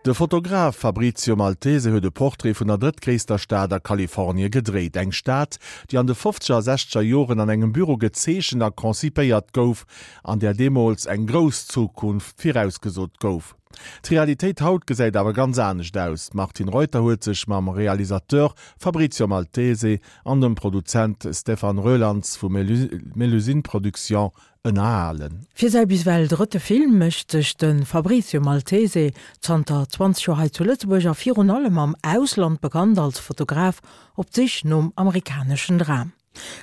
De Fotograf Fabrizio Maltese huet e Portrait vun der drëttgréisster Stad a Kalifornie gedréit. Eng Stad, déi an de fofzeger a sechzeger Joren an engem Büro gezeechent a konzipéiert gouf, an där deemools eng grouss Zukunft virausgesot gouf. D'Realitéit haut gesäit awer ganz anescht aus. D'Martine Reuter huet sech mam Realisateur Fabrizio Maltese an dem Produzent Stéphane Roelandts vu Melusine Productions ënnerhalen. Fir säi bis ewell drëtte Film mécht sech de Fabrizio Maltese, zanter 20 Joer hei zu Lëtzebuerg a virun allem am Ausland bekannt als Fotograf, op d'Sich nom amerikaneschen Dram.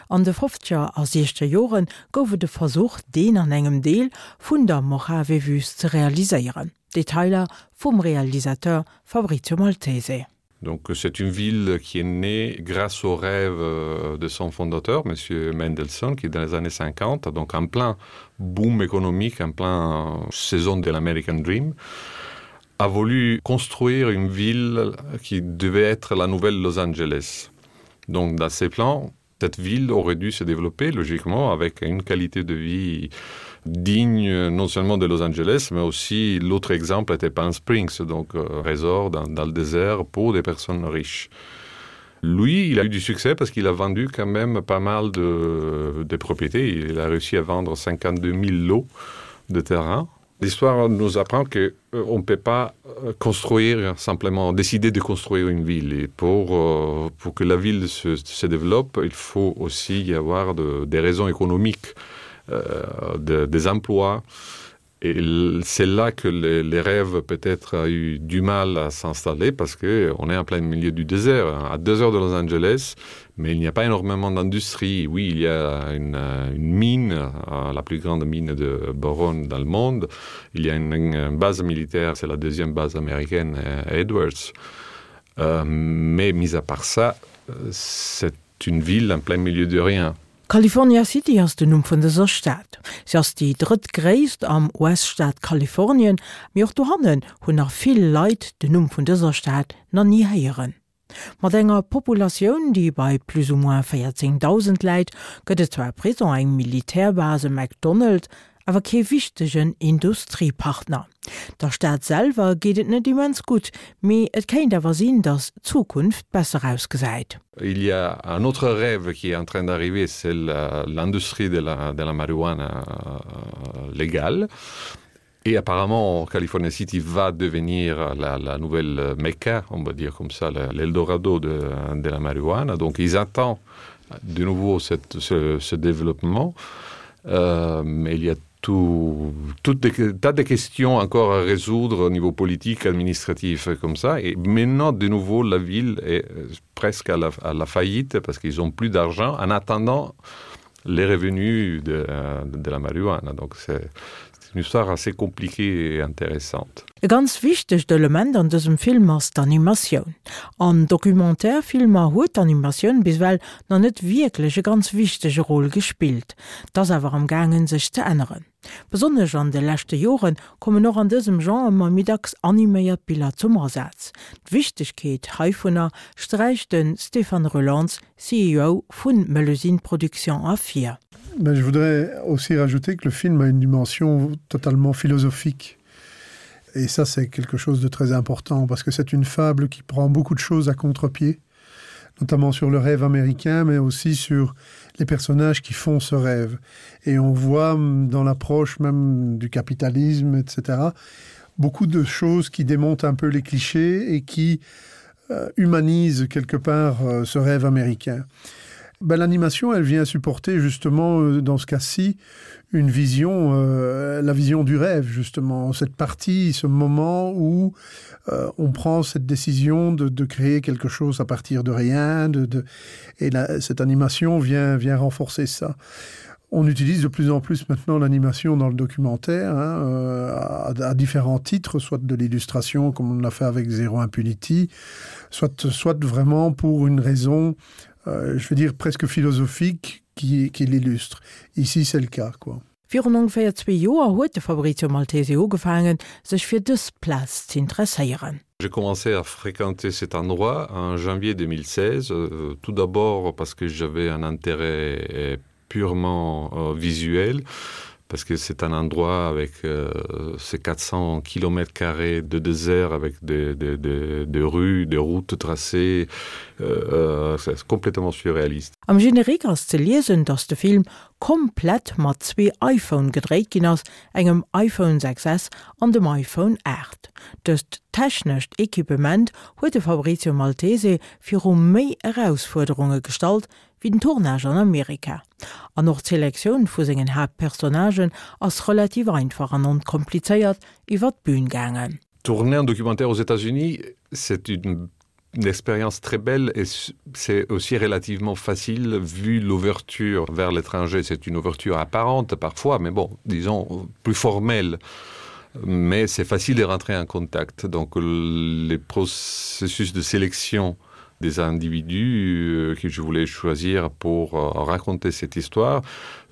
An de fofzeger a siechzeger Jore gouf et e Versuch, deen an engem Deel vun der Mojave-Wüst ze realiséieren. Detailer vum Realisateur Fabrizio Maltese. Donc c'est une ville qui est née grâce au rêve euh, de son fondateur, monsieur Mendelssohn, qui dans les années 50, donc en plein boom économique, en plein euh, saison de l'American Dream, a voulu construire une ville qui devait être la nouvelle Los Angeles. Donc dans ses plans, cette ville aurait dû se développer logiquement avec une qualité de vie digne non seulement de Los Angeles, mais aussi l'autre exemple était Palm Springs, donc euh, résort dans, dans le désert pour des personnes riches. Lui, il a eu du succès parce qu'il a vendu quand même pas mal de, de propriétés. Il a réussi à vendre 52 000 lots de terrain. L'histoire nous apprend que euh, on ne peut pas euh, construire simplement décider de construire une ville et pour, euh, pour que la ville se, se développe, il faut aussi y avoir de, des raisons économiques, euh, de, des emplois. Et c'est là que les, les rêves peut-être a eu du mal à s'installer parce qu'on est en plein milieu du désert, à deux heures de Los Angeles, mais il n'y a pas énormément d'industrie. Oui, il y a une, une mine, euh, la plus grande mine de boron dans le monde. Il y a une, une base militaire, c'est la deuxième base américaine euh, Edwards. Euh, mais mis à part ça, euh, c'est une ville en plein milieu de rien. California City ass den Numm vun dëser Stad. Si ass déi drëttgréisst am US-Staat Kalifornien, mee och dohannen hunn nach vill Leit den Numm vun dëser Stad nach ni héieren. Mat enger Populatioun, déi bei plus ou moins 14.000 läit, gëtt et zwar e Prison, eng Militärbase, e McDonald's, awer kee wichtegen Industriepartner. Der Stad selwer geet et net immens gutt, mee et kéint awer sinn, datt d'Zukunft besser ausgesäit. Il y a un autre rêve qui est en train d'arriver, c'est l'industrie de la, de la marijuana euh, légale. Et apparemment, California City va devenir la, la nouvelle Mecca, on va dire comme ça, l'Eldorado de, de la marijuana. Donc ils attendent de nouveau cette, ce, ce développement. Euh, mais il y a tout, toutes des tas de questions encore à résoudre au niveau politique, administratif comme ça. Et maintenant, de nouveau, la ville est euh, presque à la, à la faillite parce qu'ils n'ont plus d'argent en attendant les revenus de, de la marijuana. Donc c'est une histoire assez compliquée et intéressante. E ganz wichtegt Element an dësem Film ass d'Animatioun. An Documentaire-Filmer huet d'Animatioun bis ewell nach net wierklech e ganz wichtege Rôle gespillt. 't ass awer am gaangen sech ze änneren. Besonnesch an de leschte Jore kommen och an dësem Genre ëmmer méi dacks animéiert Biller zum Asaz. D'Wichtegkeet heivunner sträicht de Stéphane Roelants, CEO vu Melusine Productions ervir. Mais je voudrais aussi rajouter que le film a une dimension totalement philosophique. Et ça c'est quelque chose de très important parce que c'est une fable qui prend beaucoup de choses à contre-pied, notamment sur le rêve américain, mais aussi sur les personnages qui font ce rêve. Et on voit dans l'approche même du capitalisme, etc., beaucoup de choses qui démontent un peu les clichés et qui euh, humanisent quelque part euh, ce rêve américain. Ben, l'animation elle vient supporter justement euh, dans ce cas-ci une vision euh, la vision du rêve justement cette partie ce moment où euh, on prend cette décision de, de créer quelque chose à partir de rien de, de et la, cette animation vient vient renforcer ça on utilise de plus en plus maintenant l'animation dans le documentaire hein, euh, à, à différents titres soit de l'illustration comme on l'a fait avec zéro impunity soit soit vraiment pour une raison euh, je veux dire presque philosophique qui, qui l'illustre. Ici c'est le cas quoi. Virun ongeféier zwee Joer huet de Fabrizio Maltese ugefaangen, sech fir dës Plaz z'interesséieren. J'ai commencé à fréquenter cet endroit en janvier 2016, euh, tout d'abord parce que j'avais un intérêt euh, purement euh, visuel. Parce que c'est un endroit avec euh, ces 400 km carrés de désert avec des, des, des, des rues, des routes tracées, euh, euh c'est complètement surréaliste. Am Générique ass ze liesen, dass de Film komplett mat zwee iPhone gedréit ginn ass, engem iPhone 6S an dem iPhone 8. Dëst technescht Equipement huet de Fabrizio Maltese viru méi Erausfuerderunge gestallt wéi den Tournage an Amerika. An och d'Selektioun vu sengen Haaptpersonnagen ass relativ einfach an onkomplizéiert iwwer d'Bün gaangen. Tourner un documentaire aux États-Unis, c'est une une expérience très belle et c'est aussi relativement facile vu l'ouverture vers l'étranger. C'est une ouverture apparente parfois, mais bon, disons plus formelle. Mais c'est facile de rentrer en contact. Donc les processus de sélection, des individus euh, que je voulais choisir pour euh, raconter cette histoire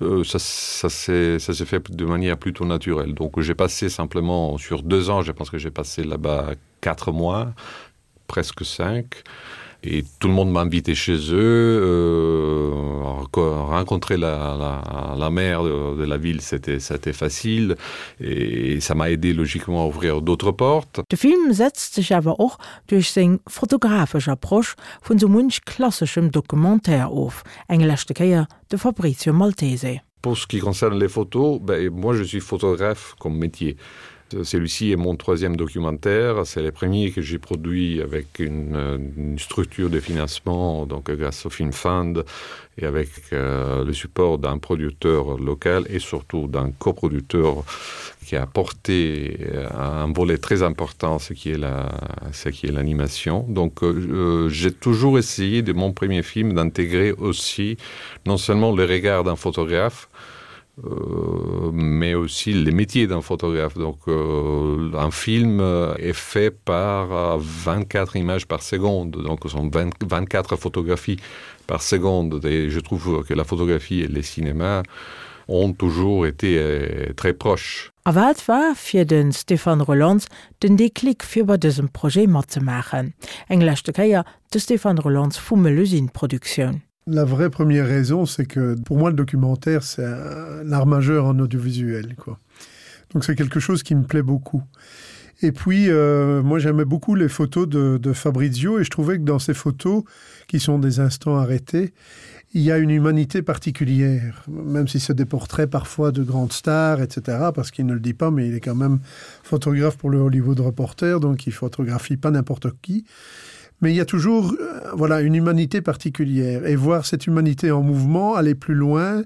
euh, ça, ça s'est fait de manière plutôt naturelle donc j'ai passé simplement sur deux ans je pense que j'ai passé là bas quatre mois presque cinq et tout le monde m'a invité chez eux euh, rencontrer la, la, la mère de, de la ville c'était c'était facile et ça m'a aidé logiquement à ouvrir d'autres portes De Film setzt sech awer och duerch seng fotografesch Approche vun sou munch klasseschem Documentaire of. Eng leschte Kéier de Fabrizio Maltese. Pour ce qui concerne les photos, ben, moi je suis photographe comme métier. Celui-ci est mon troisième documentaire, c'est le premier que j'ai produit avec une, une structure de financement donc grâce au Film Fund et avec euh, le support d'un producteur local et surtout d'un coproducteur qui a apporté euh, un volet très important ce qui est la ce qui est l'animation donc euh, j'ai toujours essayé de mon premier film d'intégrer aussi non seulement le regard d'un photographe euh, mais aussi les métiers d'un photographe donc euh, un film euh, est fait par 24 euh, images par seconde donc ce sont 20, 24 photographies par seconde et je trouve que la photographie et les cinémas ont toujours été euh, très proches. A wat war fir de Stéphane Roelants den Déclic fir bei dësem Projet matzemaachen? Eng leschte Kéier de Stéphane Roelants vu Melusine Produktioun. La vraie première raison, c'est que pour moi le documentaire c'est un art majeur en audiovisuel quoi. Donc c'est quelque chose qui me plaît beaucoup. Et puis euh, moi j'aimais beaucoup les photos de, de Fabrizio et je trouvais que dans ces photos qui sont des instants arrêtés, il y a une humanité particulière, même si c'est des portraits parfois de grandes stars, etc., parce qu'il ne le dit pas, mais il est quand même photographe pour le Hollywood Reporter, donc il photographie pas n'importe qui. Mais il y a toujours euh, voilà, une humanité particulière. Et voir cette humanité en mouvement, aller plus loin,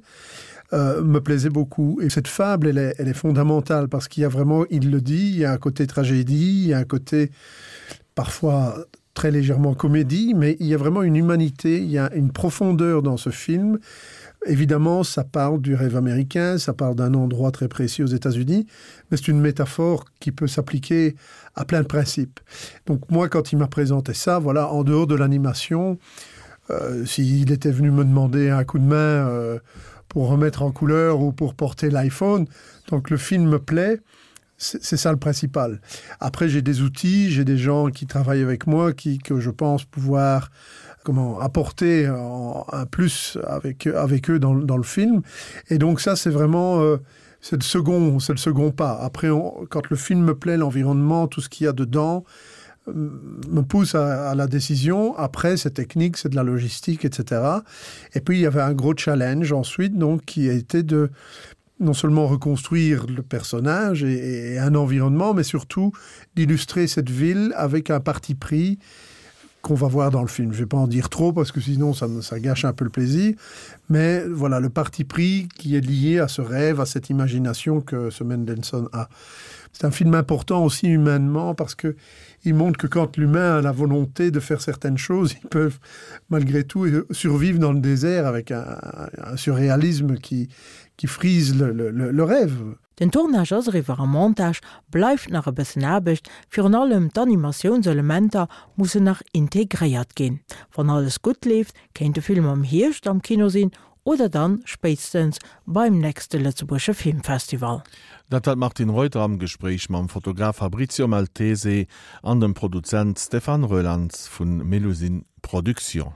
euh, me plaisait beaucoup. Et cette fable, elle est, elle est fondamentale, parce qu'il y a vraiment, il le dit, il y a un côté tragédie, il y a un côté parfois très légèrement comédie, mais il y a vraiment une humanité, il y a une profondeur dans ce film. Évidemment, ça parle du rêve américain, ça parle d'un endroit très précis aux États-Unis, mais c'est une métaphore qui peut s'appliquer à plein de principes. Donc moi, quand il m'a présenté ça, voilà, en dehors de l'animation, euh, s'il était venu me demander un coup de main euh, pour remettre en couleur ou pour porter l'iPhone, donc le film me plaît, c'est ça le principal. Après, j'ai des outils, j'ai des gens qui travaillent avec moi, qui, que je pense pouvoir comment apporter en, un plus avec, avec eux dans, dans le film. Et donc ça, c'est vraiment euh, c'est le second c'est le second pas. Après, on, quand le film me plaît, l'environnement, tout ce qu'il y a dedans euh, me pousse à, à la décision. Après, c'est technique, c'est de la logistique, etc. Et puis, il y avait un gros challenge ensuite, donc, qui a été de non seulement reconstruire le personnage et, et un environnement, mais surtout d'illustrer cette ville avec un parti pris qu'on va voir dans le film. Je vais pas en dire trop parce que sinon ça, ça gâche un peu le plaisir. Mais voilà le parti pris qui est lié à ce rêve, à cette imagination que ce Mendelssohn a. C'est un film important aussi humainement parce que il montre que quand l'humain a la volonté de faire certaines choses, ils peuvent malgré tout survivre dans le désert avec un, un surréalisme qui, qui frise le, le, le, le rêve. Den Tournage ass eriwwer, am Montage bleift nach e bëssen Aarbecht, virun allem d'Animatiounselementer mussen nach integréiert ginn. Wann alles gutt leeft, kéint de Film am Hierscht am Kino sinn oder dann spéitstens beim nächste Lëtzebuergesche Filmfestival. Dat war d'Martine Reuter am Gespréich mam Fotograf Fabrizio Maltese an dem Produzent Stéphane Roelandts vu Melusine Productions.